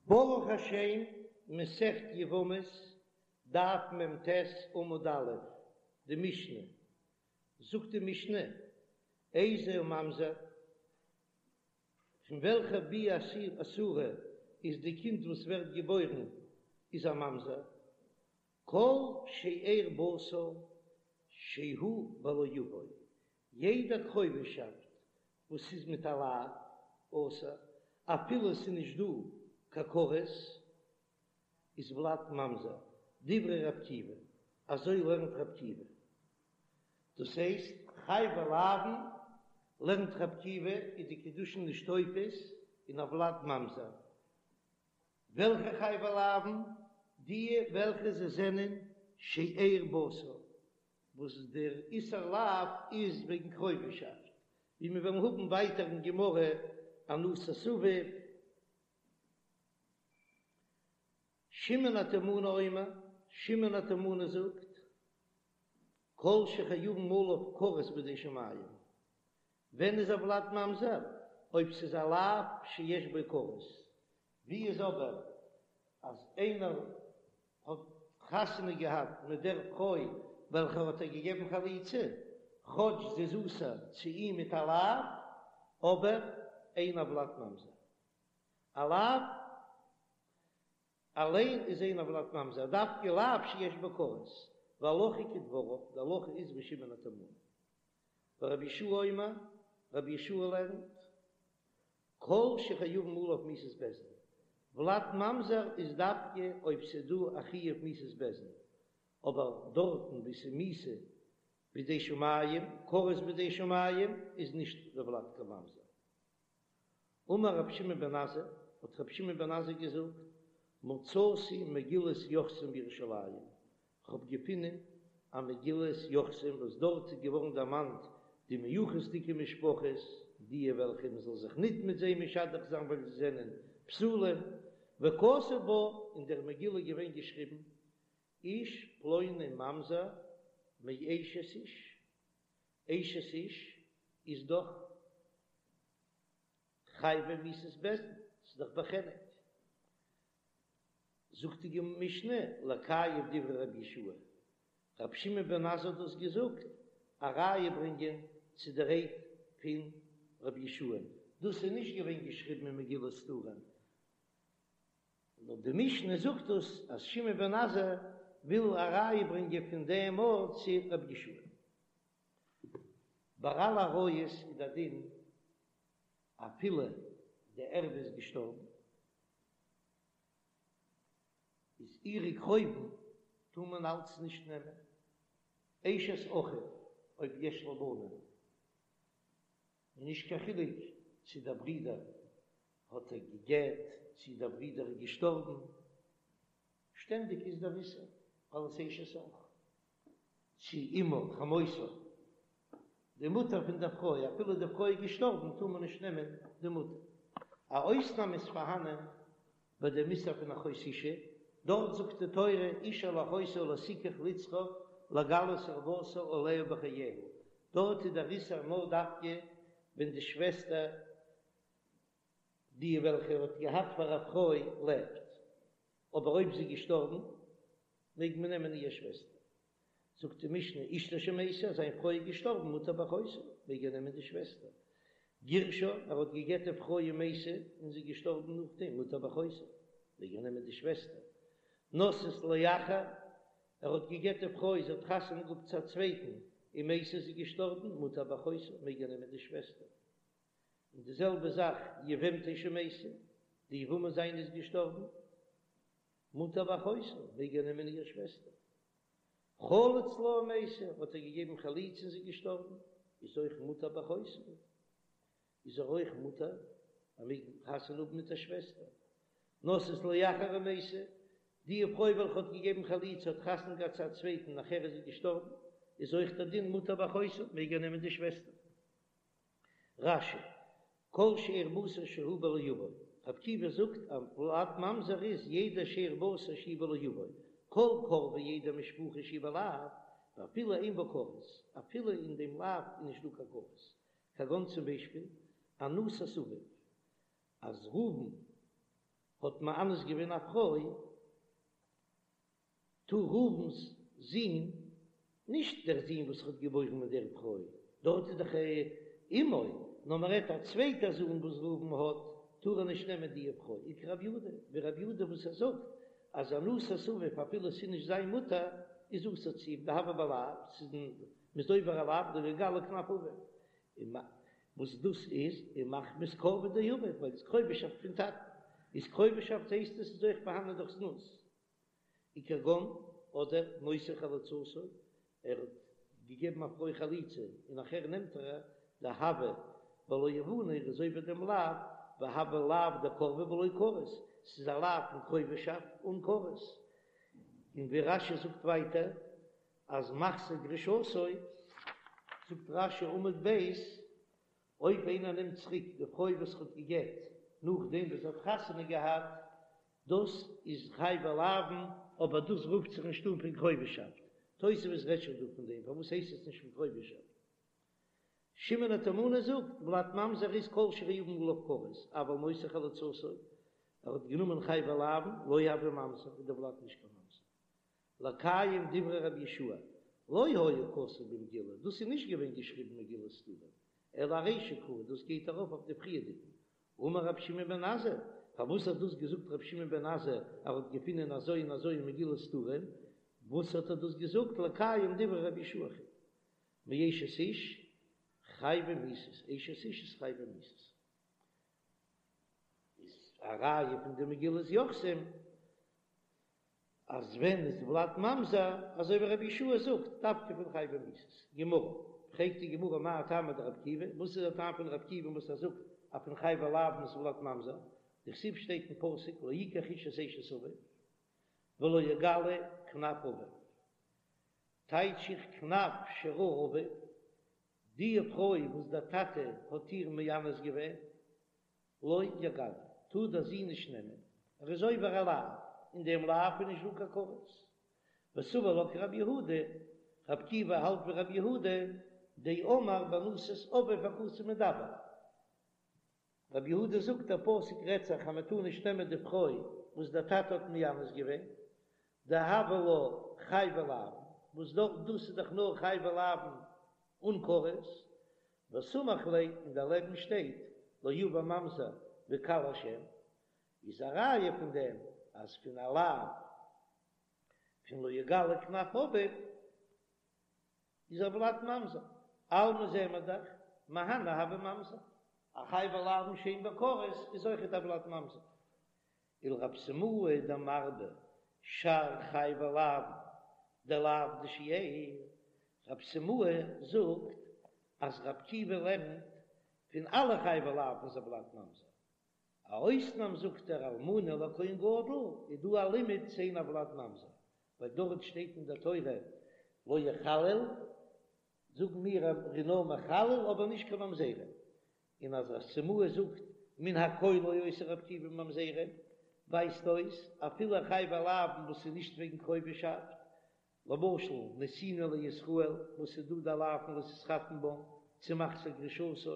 ברוך השם, מסכת יבמות, דף מ"ט עמוד א', די משנה, זאגט די משנה, איזהו ממזר, פון וועלכע ביאה אסורה איז די קינד וואס ווערט געבוירן איז א ממזר, כל שאר בשר שהוא בלא יבוא, יעדע קרובישאפט וואס איז מיט א לאו אסור, אפילו עס איז נישט דא קיין כרת, איז ולד ממזר, דברי ר' עקיבא, אזוי לערנט ר' עקיבא. דאס הייסט, חייבי לאוין לערנט ר' עקיבא איז די קידושין נישט תופס אין א ולד ממזר. וועלכע חייבי לאוין? די וועלכע זיי זענען שאר בשר, וואס דער איסור לאו איז וועגן קרובישאפט, ווי מיר וועלן האבן ווייטער אין גמרא אנוסת אביו. שמעון התימני אומר, שמעון התימני זאגט, כל שחייבין עליו כרת בידי שמים, ווען איז א ולד ממזר? אויב ס'איז א לאו שיש בו כרת, ווי איז אבער אז איינער האט חתונה געהאט מיט דער פרוי וועלכער האט איר געגעבן חליצה, כאטש זי איז אסור צו אים מיט א לאו, אבער אין הולד ממזר. א לאו אליין איז אין הולד ממזר, דווקא לאו שיש בו כרת, והלכה כדבריו, די הלכה איז ווי שמעון התימני. ורבי יהושע אומר, רבי יהושע לערנט, כל שחייבין עליו מיתת בית דין, ולד ממזר איז דווקא אויב ס'איז דא א חיוב מיתת בית דין, אבער דארטן וואו ס'איז מיתה בידי שמים, כרת בידי שמים, איז נישט דער ולד קיין ממזר. אמר רבי שמעון בן עזאי, האט רבי שמעון בן עזאי געזאגט, מצאתי מגילת יוחסין בירושלים, כ'האב געפונען א מגילת יוחסין וואס דארט איז געווארן דערמאנט די מיוחס'דיגע משפחות, די וועלכע מען זאל זיך ניט מיט זיי משדך זיין ווייל זיי זענען פסולים, וכתוב בה, אין דער מגילה איז געווען געשריבן, איש פלוני ממזר מאשת איש, אשת איש איז דאך חייבי מיתת בית דין, ס'איז דאך בחנק. זאגט די משנה, לקיים דברי רבי יהושע, רבי שמעון בן עזאי האט דאס געזאגט א ראיה ברענגען צו די רייד פון רבי יהושע, דאס איז נישט געווען געשריבן אין מגילת סתרים, נאר די משנה זאגט דאס אז שמעון בן עזאי וויל א ראיה ברענגען פון דעם ארט צו רבי יהושע. ביי אלע עריות איז דער דין אפילו די ערווה איז געשטארבן, איז אירע קרובים טאר מען אלץ נישט נעמען, אשת אחיו אויב יש לה בנים, און נישט קיין חילוק צו דער ברודער האט איר גע'גט צו דער ברודער איז געשטארבן, שטענדיג איז דער איסור אלס אשת אח, צו אמה חמותו, די מוטער פון דער פרוי, אפילו די פרוי איז געשטארבן טאר מען נישט נעמען די מוטער. א אויסנאם איז פארהאנען ביי דעם איסור פון אחות אשה, דארט זאגט די תורה אשה אל אחותה לא תקח לצרור לגלות ערותה עליה בחייה, דארט איז דער איסור נאר דווקא ווען די שוועסטער די וועלכע ער האט געהאט פאר א פרוי לעבט, אבער אויב זי איז געשטארבן מעג מען נעמען איר שוועסטער. זאגט די משנה, אשתו שמתה, זיין פרוי איז געשטארבן, מותר באחותה, מעג ער נעמען די שוועסטער. גירשה, ער האט גע'גט די פרוי ומתה, און זי איז געשטארבן נאכדעם, מותר באחותה, מעג ער נעמען די שוועסטער. נשאת לאחר, ער האט גע'גט די פרוי, זי האט חתונה געהאט צו א צווייטן, ומתה, זי איז געשטארבן, מותר באחותה, מעג ער נעמען די שוועסטער. און די זעלבע זאך יבמתו שמתה, די יבמה זיינע איז געשטארבן, מותר באחותה, מעג ער נעמען איר שוועסטער. חלץ לה ומתה, האט ער געגעבן חליצה און זי איז געשטארבן, איז אויך מותר באחותה, איז ער אויך מותר, ער מעג חתונה האבן מיט דער שוועסטער. נשאת לאחר ומתה, די פרוי וועלכע האט געגעבן חליצה האט חתונה געהאט צו א צווייטן נאכער איז זי געשטארבן, איז אויך דער דין מותר באחותה, מעג ער נעמען די שוועסטער. רש"י, כל שאר בשר שהוא בלא יבוא, רבי עקיבא זאגט אז ולד ממזר איז יעדע שאר בשר שהוא בלא יבוא, כל קורבה יעדע משפחה שהיא בלאו, ואפילו אין בה כרת, אפילו אין דעם לאו איז נישט דא קיין כרת, כגון צום ביישפיל, אנוסת אביו, אז ראובן. האט מאנס געווען א פרוי, טאר ראובן'ס זון, נישט דער זון וואס ער האט געבוירן מיט דער פרוי, דארט איז דאך אמו, נאר מען רעדט א צווייטער זון וואס ראובן האט, טאר ער נישט נעמען די פרוי, וכרבי יהודה, ווי רבי יהודה וואס ער זאגט אז אנוסת אביו אפילו ס'איז נישט זיין מוטער, איז אסור צו אים, דהוה בלאו, ס'איז מ'איז עובר א לאו, לא יגלה כנף אביו, און וואס דאס איז, און מחמת קורבה דאביו, ווייל ס'איז קרובהשאפט פון טאטן, איז קרובהשאפט הייסט עס איז אויך פארהאנען דורך זנות. וכגון אדער נושא חלוצתו, ער האט געגעבן א פרוי חליצה און נאכער נעמט ער דהוה בלא הבנה ער איז עובר דעם לאו, והוה לאו דקורבה בלא כרת, ס'איז א לאו פון קרובהשאפט אן כרת, און ווי רש"י זאגט ווייטער אז מחזיר גרושתו, זאגט רש"י עמוד ב', אויב איינער נעמט צוריק די פרוי וואס ער האט גע'גט נאכדעם וואס זי האט חתונה געהאט, דאס איז חייבי לאוין, אבער דאס רופט זיך נישט אן פון קרובהשאפט. תוספות רעדט שוין דא פון דעם, פארוואס הייסט עס נישט פון קרובהשאפט? שמעון התימני זאגט, ולד ממזר איז כל שחייבין עליו כרת, אבל נושא חלוצתו, ער האט גענומען חייבי לאוין, לא הוי ממזר, איז דער ולד נישט קיין ממזר. לקיים דברי רבי יהושע, לא היה כתוב במגילה, דאס איז נישט געווען געשריבן מגילת סתרים, אלא ארישא קרא, דאס גייט ארויף אויף די פריערדיגן. אמר רבי שמעון בן עזאי, פארוואס האט דאס געזאגט רבי שמעון בן עזאי, ער האט געפונען אזוי און אזוי אין מגילת סתרים, וואס האט ער דאס געזאגט לקיים דברי רבי יהושע מאשת איש חייבי מיתות, אשת איש איז חייבי מיתות. איז א ראיה פון די מגילת יוחסין. אז ווען איז ולד ממזר, אזוי ווי רבי יהושע זאגט, דווקא פון חייבי מיתות. גמרא, פרעגט די גמרא מאי טעמא דרבי עקיבא, וואס איז דער טעם פון רבי עקיבא וואס ער זאגט אז פון חייבי לאוין איז ולד ממזר, דכתיב שטייט אין פסוק לא יקח איש את אשת אביו ולא יגלה כנף אביו, טייטש איך כנף שראה אביו, די פרוי וואס דער טאטע האט איר מאנס געווען, לא יגלה, טאר דער זון נישט נעמען, ער איז עובר א לאו, אין דעם לאו איז נישט דא קיין כרת. וסבר לה כרבי יהודה, רבי עקיבא האלט ווי רבי יהודה, דאמר באנוסת אביו הכתוב מדבר. רבי יהודה זאגט דער פסוק רעדט זיך אז מען טאר נישט נעמען די פרוי וואס דער טאטע האט מאנס געווען, דהוה לה חייבי לאוין, וואס דאס איז דאך נאר חייבי לאוין אן כרת, וסמיך ליה, און דערלעבן שטייט לא יבא ממזר בקהל השם, איז א ראיה פון דעם אז פון א לאו פון לא יגלה כנף אביו איז הולד ממזר, אלמא זעען מיר דאך מהני הוי ממזר, א חייבי לאוין שאין בו כרת איז אויכעט הולד ממזר. ולרב סימאי דמרבה שאר חייבי לאוין דלאו דשאר, רב סימאי זאגט אז רב עקיבא לערנט פון אלע חייבי לאוין איז הולד ממזר, א אויסנאם זאגט ער אלמנה לכהן גדול איז דא א לימוד שאין הולד ממזר, ווייל דארט שטייט אין דער תורה לא יחלל, זאגן מיר ער איז נאר מחלל אבער נישט קיין ממזרים, און אז רב סימאי זאגט מן הכל לא עושה רב עקיבא ממזרים, ווייזט אויס אפילו חייבי לאוין וואס איז נישט וועגן קרובהשאפט, למשל נתינה לישראל וואס איז דא די לאו פון לא תתחתן בם צו מחזיר גרושתו,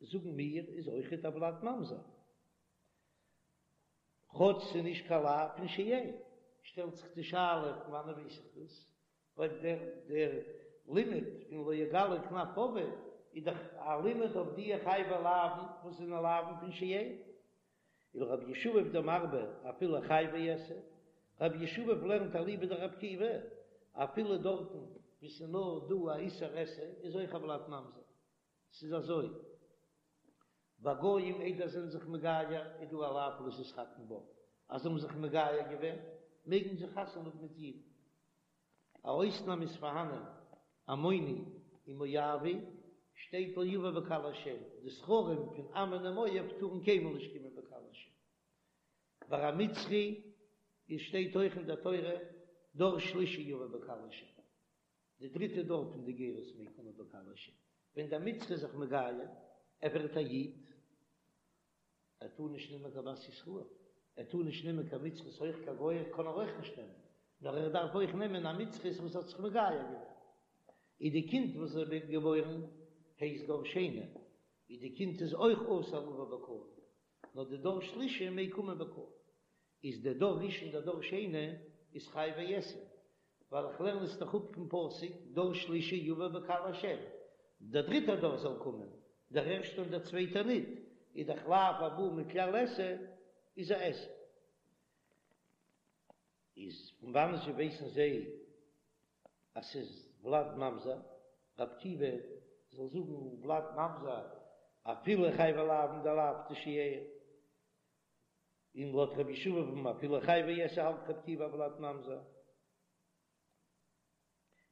זאגן מיר איז אויכעט הולד ממזר, כאטש ס'איז נישט קיין לאו פון שאר. שטעלט זיך די שאלה פון וואנען ווייס איך דאס? ווייל דער דער לימוד פון לא יגלה כנף אביו איז דאך א לימוד אויף די חייבי לאוין וואס זענען לאוין פון שאר. ולרבי ישבב דמרבה אפילו חייבי עשה, רבי ישבב לערנט אליבא דרבי עקיבא, אפילו דארטן וואו ס'איז נאר דא א איסור עשה איז אויך הולד ממזר. ס'איז אזוי, ביי גויים איידער זענען זיך מגייר איז דא א לאו לא תתחתן בם, אז זיי האבן זיך מגייר געווען מעגן זיי חתונה האבן מיט אידן. א אויסנאם איז פארהאנען, עמוני און מואבי, שטייט לא יבא בקהל השם, די זכרים פון עמון און מואב טארן קיינמאל נישט קומען בקהל השם. ביי א מצרי איז שטייט אויך אין דער תורה דור שלישי יבא בקהל השם, די דריטע דור פון די גירות מעג קומען בקהל השם, ווען דער מצרי איז זיך מגייר, ער ווערט א איד, ער טאר נישט נעמען קיין בת ישראל, ער טאר נישט נעמען קיין מצרית אויך קיין גויה קען ער אויך נישט נעמען, נאר ער דארף אויך נעמען א מצרית וואס האט זיך מגייר געווען. איז די קינד וואס ווערט געבוירן הייסט דור שני, איז די קינד איז אויך אסור לבוא בקהל. נאר די דור שלישי מעג קומען בקהל. איז דער דור ראשון דער דור שני איז חייבי עשה, ווייל איך לערן עס דאך אפ פון פסוק דור שלישי יבא בקהל השם, דער דריטער דור זאל קומען, דער ערשטער און דער צווייטער ניט, איז דאך לאו הבא מכלל עשה איז א עשה. איז פון וואנען זשע ווייסן זיי אז ס'איז ולד ממזר? רבי עקיבא זאל זאגן ולד ממזר אפילו חייבי לאוין דלאו דשאר, און לויט רבי ישבב אפילו חייבי עשה האלט רבי עקיבא הולד ממזר.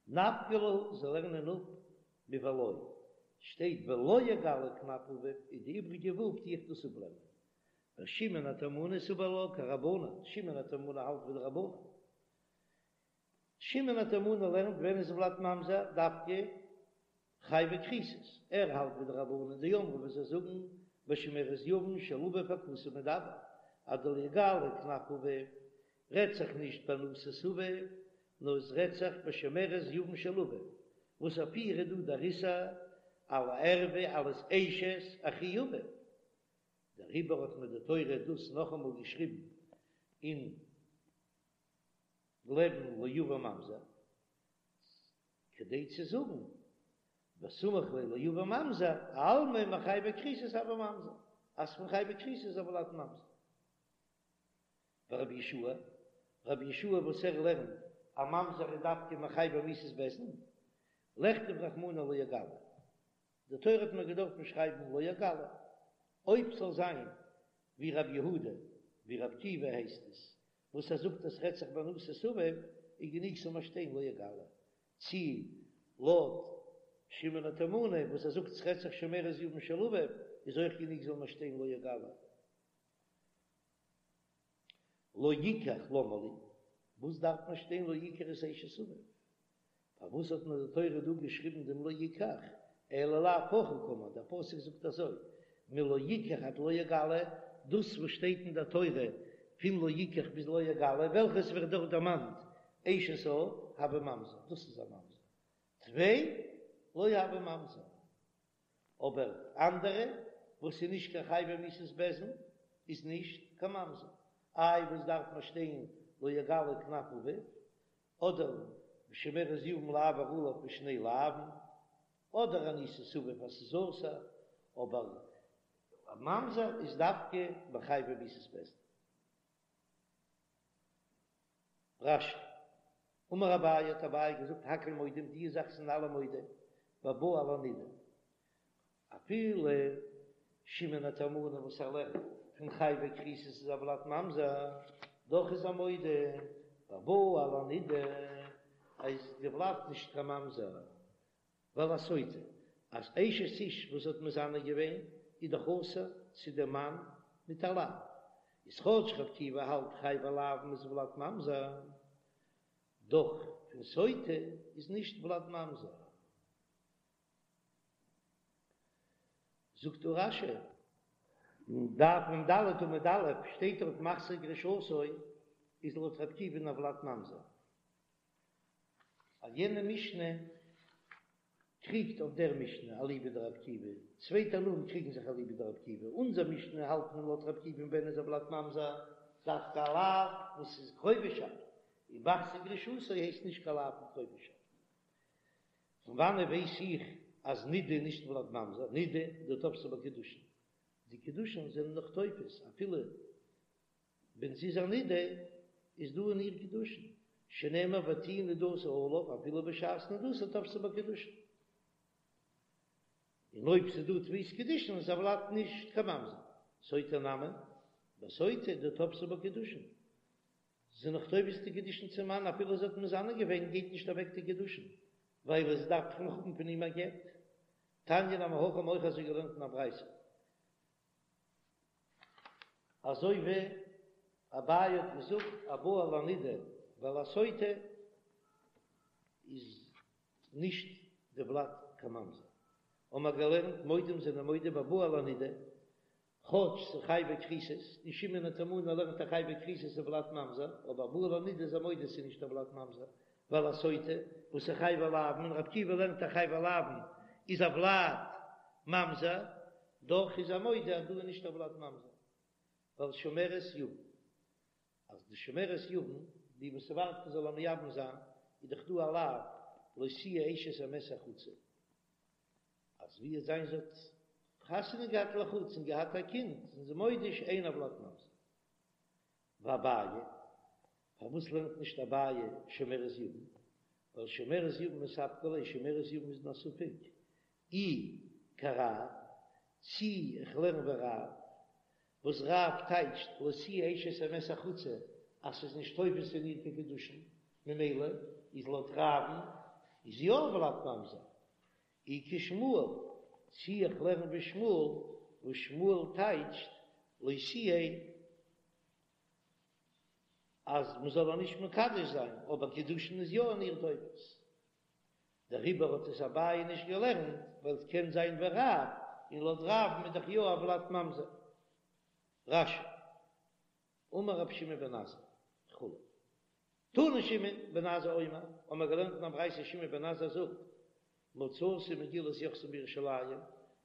נפקא להו זיי לערנען אפ מולא, שטייט ולא יגלה כנף אביו איז די איבריגע ו' טו איך דאס אפלערנען. ושמעון התימני סבר לה כרבנן, שמעון התימני האלט ווי די רבנן. שמעון התימני לערנט ווען איז ולד ממזר דווקא חייבי כריתות, ער האלט ווי די רבנן דאמרי וואס זיי זאגן בשומרת יבם של אביו הכתוב מדבר אז די לא יגלה כנף אביו רעדט זיך נישט באנוסת אביו נאר עס רעדט זיך בשומרת יבם של אביו וואס אויף איר איז דא דער איסור על הערווה אלס אשת אחי אביו דעריבער האט מיר די תורה דאס נאכאמאל געשריבן אין לעבן לא יבא ממזר, כדי צו זאגן וסמיך ליה לא יבא ממזר, אלמא מחייבי כריתות הוי ממזר, אז פון חייבי כריתות איז הולד ממזר. ורבי יהושע, רבי יהושע וואס ער לערנט א ממזר איז דווקא מחייבי מיתות בית דין, לכתוב רחמנא לא יגלה, די תורה האט מיר געדארפן שרייבן לא יגלה, אויב ס'זאל זיין ווי רבי יהודה, ווי רבי עקיבא הייסט עס, וואס ער זאגט אז ס'רעדט זיך באנוסת אביו, איז גענוג ס'זאל מיר שטיין לא יגלה, צי לויט שמעון התימני וואס ער זאגט ס'רעדט זיך שומרת יבם של אביו, איז אויך גענוג זאל מיר שטיין לא יגלה. לא יקח למה לי, וואס דארף מען שטיין לא יקח את אשת אביו? פארוואס האט מיר די תורה דא געשריבן דעם לא יקח, אלא לאו הכי קאמר, דער פסוק זאגט אזוי, מלא יקח עד לא יגלה, דאס וואס שטייט אין דער תורה פון לא יקח ביז לא יגלה, וועלכעס ווערט דארט דערמאנט אשת אב, הוי ממזר, דאס איז א ממזר, טפי לא הוי ממזר, אבער אנדערע וואס איז נישט קיין חייבי מיתות בית דין איז נישט קיין ממזר, איי וואס דארף מען שטיין לא יגלה כנף אביו, אדער שומרת יבם לעבור עליו בשני לאווין, אדער אנוסת אביו אז ס'איז אסור, אבער א ממזר איז דווקא מחייבי מיתות בית דין. רש"י, אמר אביי האט אביי געזאגט הכל מודים די זאך זענען אלע מודה בבא על הנידה, אפילו שמעון התימני וואס ער לערנט פון חייבי כריתות איז הולד ממזר, דאך איז ער מודה בבא על הנידה איז די ולד נישט קיין ממזר, ועל הסוטה אז אשת איש וואס האט מזנה געווען איז דאך אסור צו דעם מאן מיט א לאו, איז כאטש רבי עקיבא האלט חייבי לאוין איז ולד ממזר, דאך פון סוטה איז נישט ולד ממזר. זאגט דא רש"י, אין דף מ"ד עמוד א' שטייט דארט מחזיר גרושתו איז לויט רבי עקיבא'ן הולד ממזר. אז יענע משנה קריגט אויף דער משנה אליבא דרבי עקיבא, צוויי תנאים קריגן זיך אליבא דרבי עקיבא, אונזער משנה האלט מען לויט רבי עקיבא'ן ווען איז הולד ממזר דווקא א לאו וואס איז קרובישאפט, און מחזיר גרושתו הייסט נישט קיין לאו פון קרובישאפט. פון וואנעט ווייס איך אז נידה איז נישט ולד ממזר? נידה דתפסה בה קידושין, די קידושין זענען נאך תופס אפילו ווען זי איז א נידה איז דא אין איר קידושין, שנאמר ותהי נדתה עליו אפילו בשעת נדתה תפסה בה קידושין, און אויב ס'איז דא תפיסת קידושין איז הולד נישט קיין ממזר, סוטה נמי, בסוטה דתפסה בה קידושין, זי איז נאך תופס די קידושין צום מאן אפילו זי האט מזנה געווען גייט נישט אוועק די קידושין ווייל זי דארף דאך נאך האבן פון אים א גט. תניא נמי הכי האבן אויך אזוי געלערנט אין א ברייתא. אזוי ווי אביי האט געזאגט הבא על הנידה ועל הסוטה איז נישט די ולד קיין ממזר. האבן מיר געלערנט מודים זענען מודה בבא על הנידה כאטש ס'איז חייבי כריתות, און שמעון התימני לערנט אז חייבי כריתות איז ולד ממזר, אבער הבא על הנידה איז ער מודה ס'איז נישט הולד ממזר, ועל הסוטה, וואס איז חייבי לאוין, און רבי עקיבא לערנט אז חייבי לאוין איז הולד ממזר, דאך איז ער מודה אז דא איז נישט הולד ממזר. ווייל שומרת יבם, אז די שומרת יבם, די וואס ווארט מען זאל איר מייבם זיין, איז דאך דא א לאו לא תהיה אשת המת החוצה, אז ווי עס זיין זי האט חתונה געהאט לחוץ און געהאט א קינד, זענען זיי מודה שאין הולד ממזר. ואביי, פארוואס לערנט נישט אביי שומרת יבם? ווייל שומרת יבם מספקא ליה, שומרת יבם איז אין א ספק, אי כרב, צי איך לערן ווי רב, וואס רב טייטשט לא תהיה אשת המת החוצה אז ס'איז נישט תופס אין איר קיין קידושין, ממילא איז לויט רב'ן איז יא הולד ממזר. אי כשמואל, צי איך לערן ווי שמואל, וואס שמואל טייטשט לא תהיה אז מ'זאל איר נישט מקדש זיין, אבער קידושין איז יא אין איר תופס. דעריבער האט עס אביי נישט געלערנט, ווייל עס קען זיין ווי רב, און לויט רב'ן איז דאך יא הולד ממזר. רש"י, אמר רבי שמעון בן עזאי, וכו'. תנא שמעון בן עזאי אומר, האבן מיר געלערנט אין א ברייתא שמעון בן עזאי זאגט, מצאתי מגילת יוחסין בירושלים,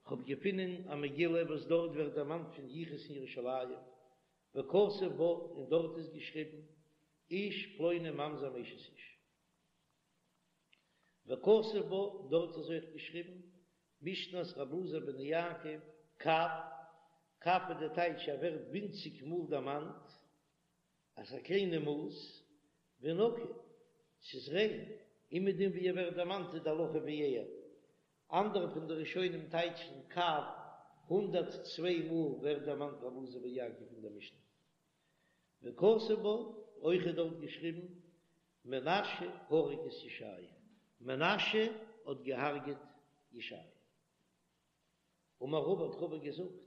כ'האב געפונען א מגילה וואס דארט ווערט דערמאנט פון יחוס אין ירושלים, וכתוב בה, און דארט איז געשריבן, איש פלוני ממזר מאשת איש. וכתוב בה, דארט איז אויך געשריבן, משנת רבי אלעזר בן יעקב, קב, קב איז די טייטש ער ווערט ווינציג מאל דערמאנט, אז א קליינע מאס, ונקי, ס'איז ריין, אומעדום ווי ער ווערט דערמאנט איז די הלכה ווי ער. אנדערע פון די ראשונים טייטשן קב, 102 מאל ווערט דערמאנט רבי אלעזר בן יעקב אין דער משנה. וכתוב בה, אויך איז דארט געשריבן, מנשה הרג את ישעיה, מנשה האט געהארגעט ישעיה. אמר רבא האט רבא געזאגט,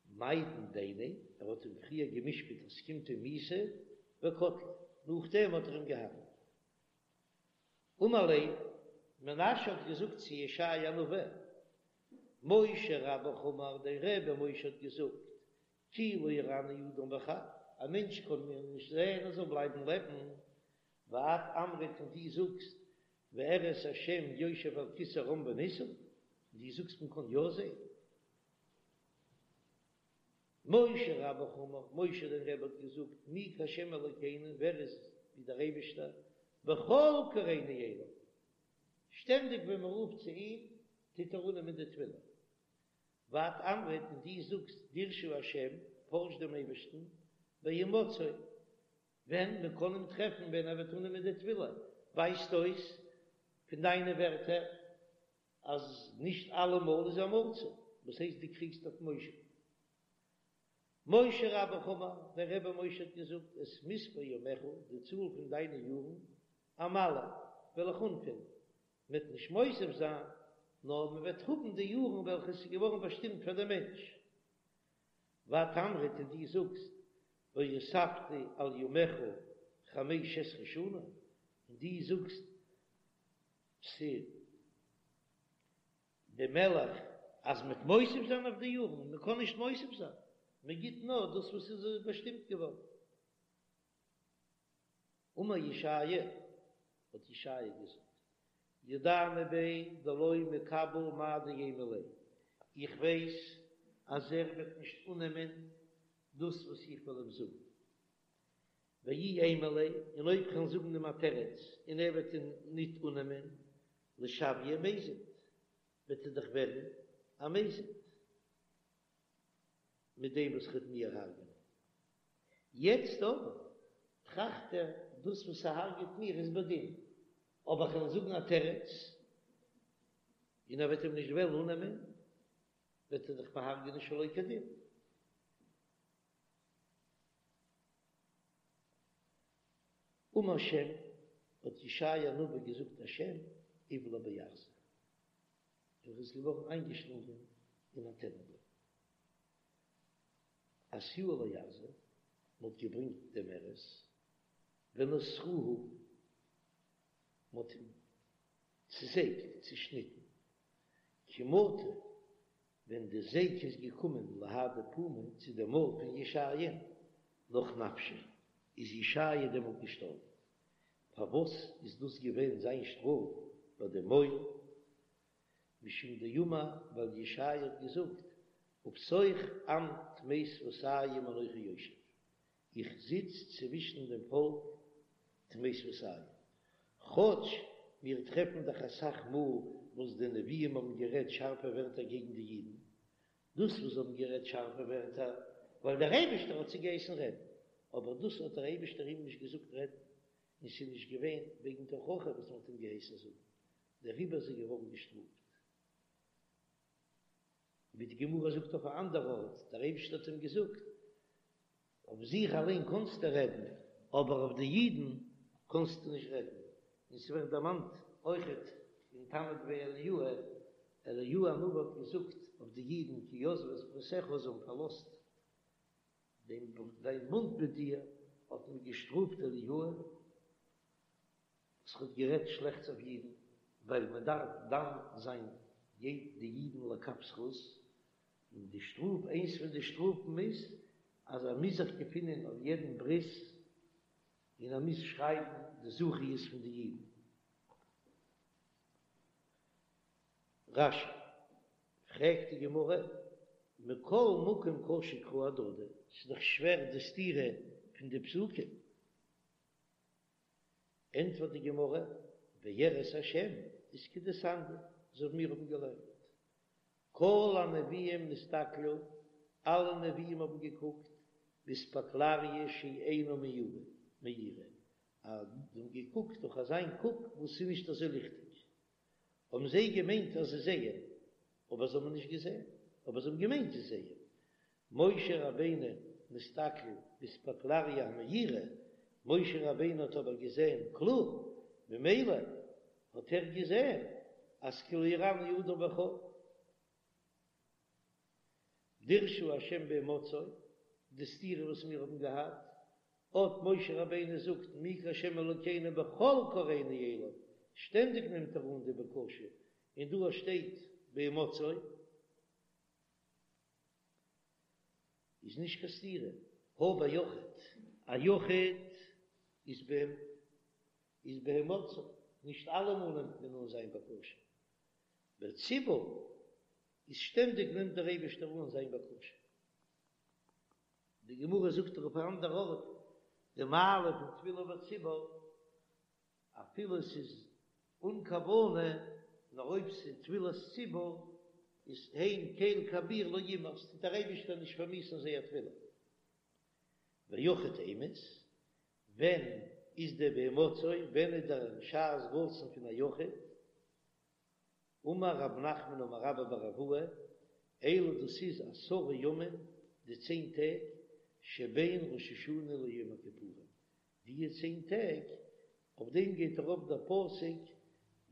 מידן דיניה, ער האט אים פריער גע'משפט אז ס'קומט אים מיתה, וקטליה, נאכדעם האט ער אים געהארגעט. אמר ליה, מנשה האט געזאגט צו ישעיה הנביא, משה רבך אמר, דיין רבי משה האט געזאגט, כי לא יראני אדם וחי, א מענטש קען מיר נישט זען און זאל בלייבן לעבן, ואת אמרת און דו זאגסט, ואראה את השם יושב על כסא רם ונישא, און דו זאגסט מען קען יא זען. משה רבך אמר, משה דיין רבי האט געזאגט, מי כהשם אלוקינו, ווער איז ווי דער אייבערשטער, בכל קראנו אליו, שטענדיג ווען מען רופט צו אים, טוט ער אננעמען די תפילה. ואת אמרת און דו זאגסט דרשו השם, פארש דעם אייבערשטן, בהמצאו, ווען מען קען אים טרעפן ווען ער וועט אננעמען די תפילה, ווייזט אויס פון דיינע ווערטער אז נישט אלעמאל איז ער מצוי, וואס הייסט דו קריגסט אויף משה? משה רבך אמר, דיין רבי משה האט געזאגט, את מספר ימיך, די צאל פון דיינע יארן, אמלא, וועל איך אנפילן, מ'וועט נישט מוסיף זיין, נאר מען וועט האבן די יארן וועלכע עס איז געווארן באשטימט פאר דעם מענטש. ואת אמרת און דו זאגסט, והוספתי על ימיך חמש עשרה שנה, און דו זאגסט צו דעם מלך אז מ'וועט מוסיף זיין אויף די יארן, מען קען נישט מוסיף זיין, מען גיט נאר דאס וואס איז באשטימט געווארן. אמר ישעיה, האט ישעיה געזאגט, ידענא ביה דלא מקבל מאי דאימא ליה, איך ווייס אז ער וועט נישט אננעמען דאס וואס איך וועל אים זאגן, ואי אימא ליה, און אויב כ'וועל זאגן אים א תירוץ און ער וועט אים ניט אננעמען, לשויי מזיד, וועט ער דאך ווערן א מזיד. מיט דעם וואס ער וועט מיר הרג'נען. יעצט אבער טראכט ער, דאס וואס ער הרג'עט מיר איז בדין, אבער כ'וועל זאגן א תירוץ, און ער וועט אים נישט וועלן אננעמען, וועט ער דאך מיר הרג'נען שלא כדין. אמר שם, האט ישעיה הנביא געזאגט א שם, אבלע בארזא. ער איז געווארן איינגעשלונגען אין א טענענבוים. אתיוה לארזא, מען האט געברענגט דעם ארז, ונתרוהו, מען האט אים צעזעגט, צעשניטן, כי מטא, ווען די זעג איז געקומען להדי פומיה צו דעם מויל פון ישעיה'ן, נח נפשיה, איז ישעיה דעמאלט געשטארבן. פארוואס איז דאס געווען זיין שטראף ביי דעם מויל? משום דאמר, ווייל ישעיה האט געזאגט. ובתוך עם טמא שפתים אנכי יושב, איך זיץ צווישן דעם פאלק טמא שפתים. כאטש מיר טרעפן דאך אסאך מאל וואס די נביאים האבן גערעדט שארפע ווערטער קעגן די אידן, דאס וואס זיי האבן גערעדט שארפע ווערטער ווייל דער אייבערשטער האט זיי געהייסן רעדן, אבער דאס האט דער אייבערשטער אים נישט געזאגט רעדן, און ס'איז נישט געווען וועגן תוכחה וואס מ'האט אים געהייסן זאגן, דעריבער איז ער געווארן געשטראפט. ווי די גמרא זאגט אויף א אנדער ארט, דער אייבערשטער האט אים געזאגט, אויף זיך אליין קאנסטו רעדן, אבער אויף די אידן קאנסטו נישט רעדן. און ס'ווערט דערמאנט אויכעט אין תנא דבי אליהו, אליהו הנביא האט געזאגט אויף די אידן כי עזבו את בריתך, זיי האבן פארלאזט דעם דיין בונד מיט דיר, האט מען געשטראפט אליהו, וואס האט גערעדט שלעכטס אויף אידן, ווייל מען דארף דן זיין די אידן לכף זכות, און די שטראף, איינס פון די שטראפן איז אז ער מוז זיך געפינען אויף יעדן ברית, און ער מוז שרייבן די זכיות פון די אידן. רש"י, פרעגט די גמרא, מכל מקום קשו קראי אהדדי, ס'איז דאך שווער די סתירה פון די פסוקים. ענטפערט די גמרא, וירא את השם איז כדתניא, אזוי ווי מיר האבן געלערנט, כל הנביאים נסתכלו, אלע נביאים האבן געקוקט, באספקלריא שאינה מאירה, אז זיי האבן געקוקט דורך אזיין קוק וואס איז נישט אזוי ליכטיג, האבן זיי געמיינט אז זיי זעען, אבער זיי האבן נישט געזען, אבער זיי האבן געמיינט זיי זעען. משה רבינו נסתכל באספקלריא המאירה, משה רבינו האט אבער געזען קלאר, ממילא האט ער געזען אז כי לא יראני האדם וחי. דרשו השם בהמצאו, די סתירה וואס מיר האבן געהאט, אט משה רבינו זאגט מי כהשם אלוקינו בכל קראנו אליו, שטענדיג נעמט ער אן די בקשה, און דא שטייט בהמצאו, איז נישט קיין סתירה, הא ביחיד, א יחיד איז ב איז בהמצאו, נישט אלעמאל נעמט מען אן זיין בקשה, בציבור איז שטענדיג נעמט דער אייבערשטער אן זיין בקשה. די גמרא זאגט דאך אויף א אנדער ארט די מעלה פון תפילה בציבור, אפילו עס איז אן כוונה, נאר אויב ס'איז תפילת ציבור איז הן קל כביר לא ימאס, טוט דער אייבערשטער נישט פארמיאוסן זייער תפילה. ויחיד אימת, ווען איז דער בהמצאו, ווען איז דער שעת רצון פון א יחיד? אמר רב נחמן אמר רבה בר אבוה, אלו דאס איז עשרה ימים, די צען טעג, שבין ראש השנה ליום הכיפורים, די צען טעג, אויף דעם גייט ארויף דער פסוק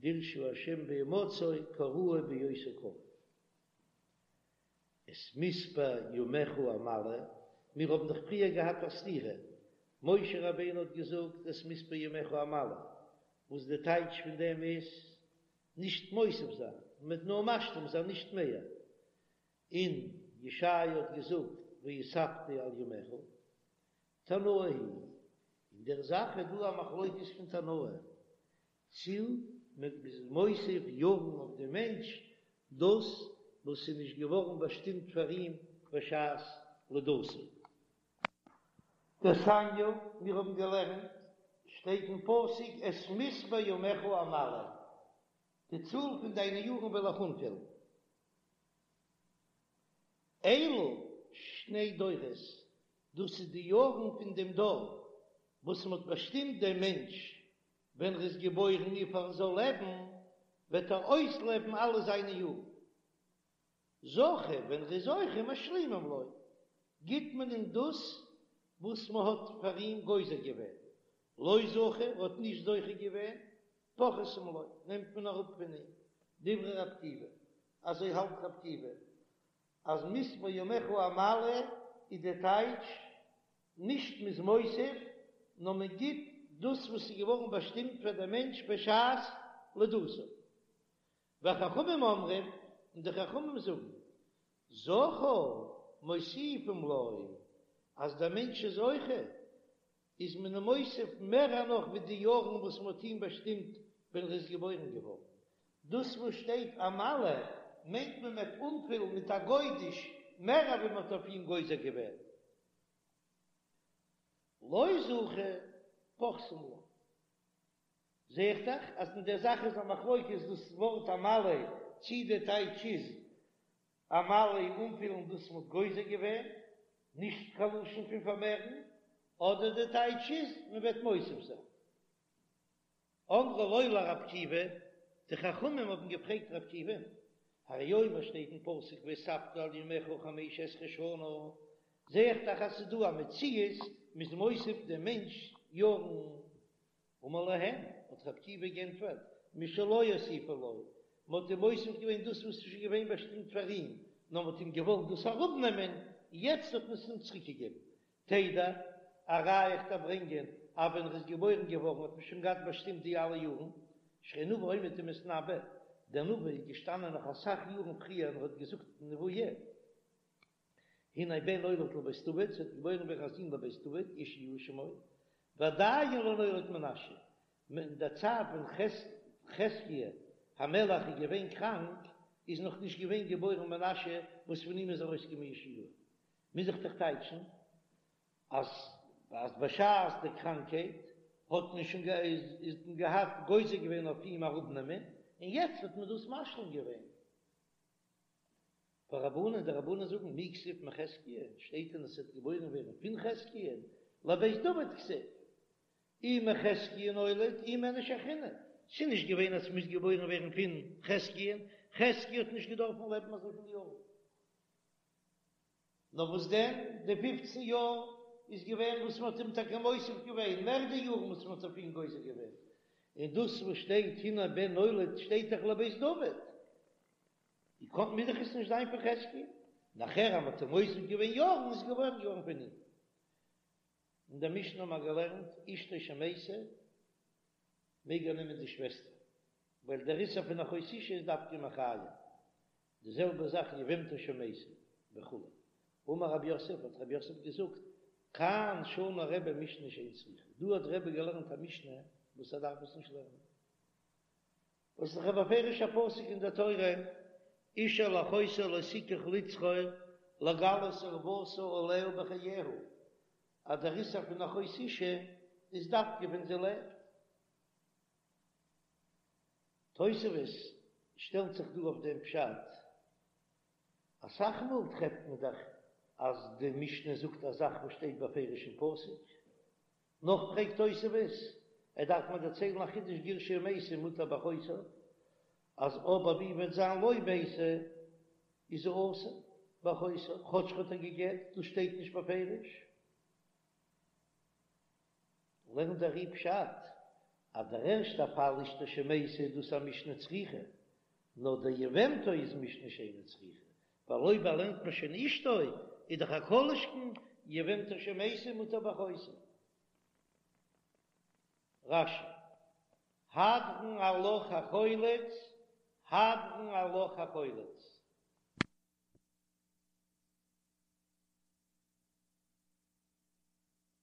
דרשו ה' בהמצאו קראוהו בהיותו קרוב. את מספר ימיך אמלא, מיר האבן דאך פריער געהאט א סתירה, משה רבינו האט געזאגט את מספר ימיך אמלא, וואס די טייטש פון דעם איז, נישט מוסיף זיין, מ'וועט נאר משלים זיין נישט מער, און ישעיה האט געזאגט והוספתי על ימיך, תנאי היא, אין דער זאך איז דא א מחלוקת פון תנאים, צי מען איז מוסיף יארן אויף דעם מענטש דאס וואס איז נישט געווארן באשטימט פאר אים בשעת לידתו. דתניא, מיר האבן געלערנט, שטייט אין פסוק את מספר ימיך אמלא, די צאל פון דיינע יארן וועל איך אנפילן. אלו שני דורות, דאס איז די יארן פון דעם דור וואס מען האט באשטימט דעם מענטש ווען ער איז געבוירן וויפיל ער זאל לעבן, וועט ער אויסלעבן אלע זיינע יארן. זכה, ווען ער איז זוכה, משלימים לו, גיט מען אים דאס וואס מען האט פאר אים גוזר געווען, לא זכה, ער האט נישט זוכה געווען, פוחתים לו, נעמט מען אראפ פון אים. דברי רבי עקיבא, אזוי האלט רבי עקיבא, אז מספר ימיך אמלא איז די טייטש, נישט מ'איז מוסיף, נאר מען גיט דאס וואס איז געווארן באשטימט פאר דעם מענטש בשעת לידתו. וחכמים אומרים, און די חכמים זאגן, זכה מוסיפים לו, אז דער מענטש איז זוכה, איז מען אים מוסיף מער נאך ווי די יארן וואס מען האט אים באשטימט ווען ער איז געבוירן געווארן. דאס וואס שטייט אמלא מיינט מען וועט אנפילן מיט א גודש. מער ווי מען האט אויף אים גוזר געווען. לא זכה, פוחתין לה. זע איך דאך אז אין דער זאך איז א מחלוקת דאס ווארט אמלא, צי די טייטש איז אמלא אנפילן דאס מ'האט גוזר געווען, נישט קיין לשון פון פארמערן, אדער די טייטש איז מ'וועט מוסיף זיין. אמרו לו לרבי עקיבא, די חכמים האבן געפרעגט רבי עקיבא'ן, הרי הוא אומר שטייט אין פסוק והוספת על ימיך חמש עשרה שנה, זע איך דאך אז ס'איז דא א מציאות מ'איז מוסיף דעם מענטש יארן. אמר להם, האט רבי עקיבא גענטפערט, משלו הוסיפו לו, מ'האט אים מוסיף געווען דאס וואס איז שוין געווען באשטימט פאר אים, נאר מ'האט אים געוואלט דאס אראפנעמען, יעצט האט מען עס אים צוריקגעגעבן. תדע, א ראיה איך דארף ברענגען אז ווען ער איז געבוירן געווארן האט מען שוין געהאט באשטימט די אלע יארן, שהרי נביא עומד ומתנבא, דער נביא איז געשטאנען נאך אסאך יארן פריער און ער האט געזאגט נבואה, הנה בן נולד לבית דוד, ס'וועט געבוירן ווערן א זון לבית דוד, יאשיהו שמו, ועדיין לא נולד מנשה, אין דער צייט ווען חזקיה המלך איז געווען קראנק, איז נאך נישט געווען געבוירן מנשה וואס פון אים איז ארויסגעקומען יאשיהו. מוז איך דאך טייטשן אז אז בשעת די קראנקהייט האט מען שוין איז מען געהאט גוזר געווען אויף אים אראפנעמען, און יעצט האט מען דאס משלים געווען. ורבנן, די רבנן זאגן מי כתיב מחזקיה, שטייט דען עס וועט געבוירן ווערן פון חזקיה, לבית דוד כתיב, אי מחזקיה נולד אי מאיניש אחרינא, ס'איז נישט געווען אז ס'מוז געבוירן ווערן פון חזקיה, חזקיה האט נישט געדארפן לעבן אזויפיל יארן. נאר וואס דען, די פופצן יאר איז געווען וואס מ'האט אים טאקע מוסיף געווען, מער די יארן וואס מ'האט אויף אים גוזר געווען, און דאס וואס שטייט הנה בן נולד שטייט דאך לבית דוד, ווי קאן מוז דאך עס נישט זיין פון חזקיה, נאכער אז מ'האט אים מוסיף געווען יארן איז געבוירן געווארן פון אים. אין דער משנה האבן מיר געלערנט אשתו שמתה מעג ער נעמען די שוועסטער, ווייל דער איסור פון אחות אשה איז דווקא מחיים, די זעלבע זאך יבמתו שמתה וכו'. אמר רב יוסף, האט רב יוסף געזאגט, כאן שנה רבי משנה שאין צריכה, דא האט רבי געלערנט א משנה וואס ער דארף עס נישט לערנען, וואס איז דאך א בפירוש'ע פסוק אין דער תורה, איש אל אחותו לא תקח לצרור לגלות ערותה עליה בחייה, אז דער איסור פון אחות אשה איז דווקא ווען זי לעבט. תוספות שטעלט זיך דא אויף דעם פשט, אסאך מאל טרעפט מען דאך אז די משנה זאגט א זאך וואס שטייט בפירוש אין פסוק, נאך פרעגט תוספות, ער דארף מיר דערציילן א חידוש גירשה ומתה מותר באחותה, אז אבער ווי וועט זיין לא מתה איז זי אסור באחותה, כאטש ער האט איר גע'גט, דאס שטייט נישט בפירוש. לערנט דער ר"י פשט אז דער ערשטער פאל אשתו שמתה איז דאס א משנה צריכה, נאר דער יבמתו איז משנה שאינה צריכה, ווייל אויב ער לערנט מען שוין אשתו איז דאך א כל שכן יבמתו שמתה מותר באחותה. רש"י, הדרן עלך החולץ, הדרן עלך החולץ.